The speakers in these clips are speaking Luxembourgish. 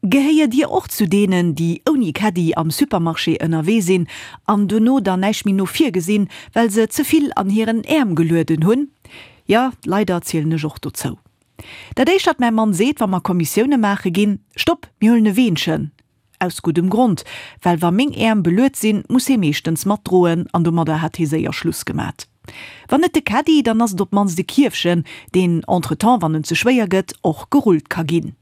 Gehéiert Dir och zu deenen, déi ouni Caddie am Supermarché ënnerwee sinn an dono dann näischt méi no vir gesinn, well se ze vill an hiren Äerm gelueden hunn? Jo, leider zielen ech och dozou. Dat éischt wat mäi Mann seet, wa mer Kommissioune maache ginn, Stopp, mir huelen e Weenchen! Aus guddem Grond, well wa meng Äerm beluet sinn, muss hee meeschtens matdroen an domadder hat hee séier Schluss gemat. Wann net de Caddie, dann ass et op d'mannst e Kierfchen, deen entretemps, wann en ze schwéier gëtt, och gerullt ka ginn.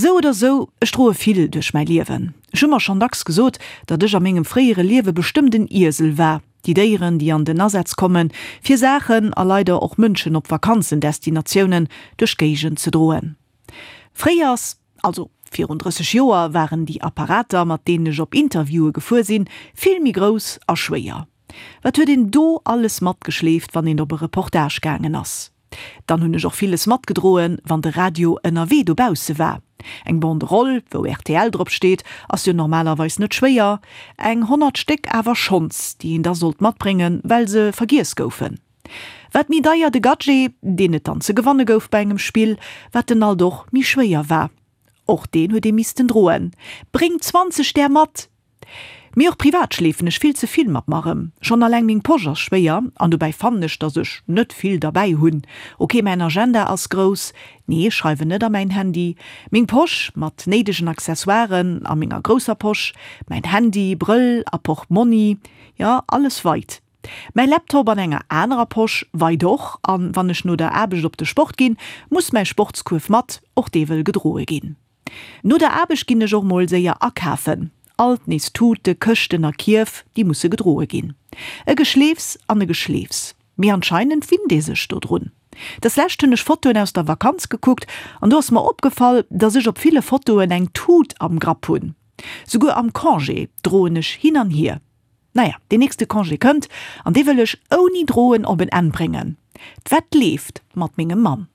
Sou oder sou, ech droe vill duerch mäi Liewen. Ech hu mer schonn dacks gesot, datt ech a mengem fréiere Liewe bestëmmt en Iesel war. Déi Déieren, déi an den Asaz kommen, fir Saachen a leider och Mënschen op Vakanzendestinatiounen duerch d'Géigend ze droen. Fréiers, also virun 30 Joer, waren déi Apparater, mat deenen ech op Interviewe gefuer sinn, vill méi grouss a schwéier. Wat huet een do alles matgeschleeft, wann een op e Reportage gaangen ass? Dann hunn ech och villes matgedroen, wann de Radio ënnerwee dobausse war. Eng Banderole, wou rtl drop steet, ass jo normalerweis net schwéier. Eng 100 Stéck awer schonns, déi een da sollt matbréngen, well se vergiess goufen. Wat méi deier de Gadget, deen et dann ze gewanne gouf bei engem Spill, wat en alt och méi schwéier war. Och deen huet ee missten droen. Bréng 20 där mat! Mee och privat schleefen ech vill ze vill mat mer erëm. Schonn alleng meng Posch ass schwéier an dobäi fannen ech, dass ech net vill derbäi hunn. Ok, mäin Agenda ass grouss, nee ech schreiwen net a mäin Handy, meng Posch mat néidegen Accessoiren a menger grousser Posch, mäin Handy, Brëll a Portmonni, jo alles weit. Mäi Laptop an enger anerer Posch weit och an wann ech no der Aarbecht op de Sport ginn, muss mäi Sportskuerf mat, och dee wëll gedroe ginn. No der Aarbecht ginn ech och mol séier akafen. Alt nees Tute, Këschten a Kierf, déi musse gedroe ginn. E Geschleefs an e Geschleefs. Mee anscheinend winnt ee sech dodrun. Des Lescht hunn ech Fotoen aus der Vakanz gekuckt an do ass mer opgefall, dass ech op ville Fotoen eng Tut am Grapp hunn. Souguer am Congé droen ech hin an hier. Naja, deen nächste Congé kënnt an dee wëll ech ouni droen op en Enn bréngen. D'Wett leeft mat mengem Mann.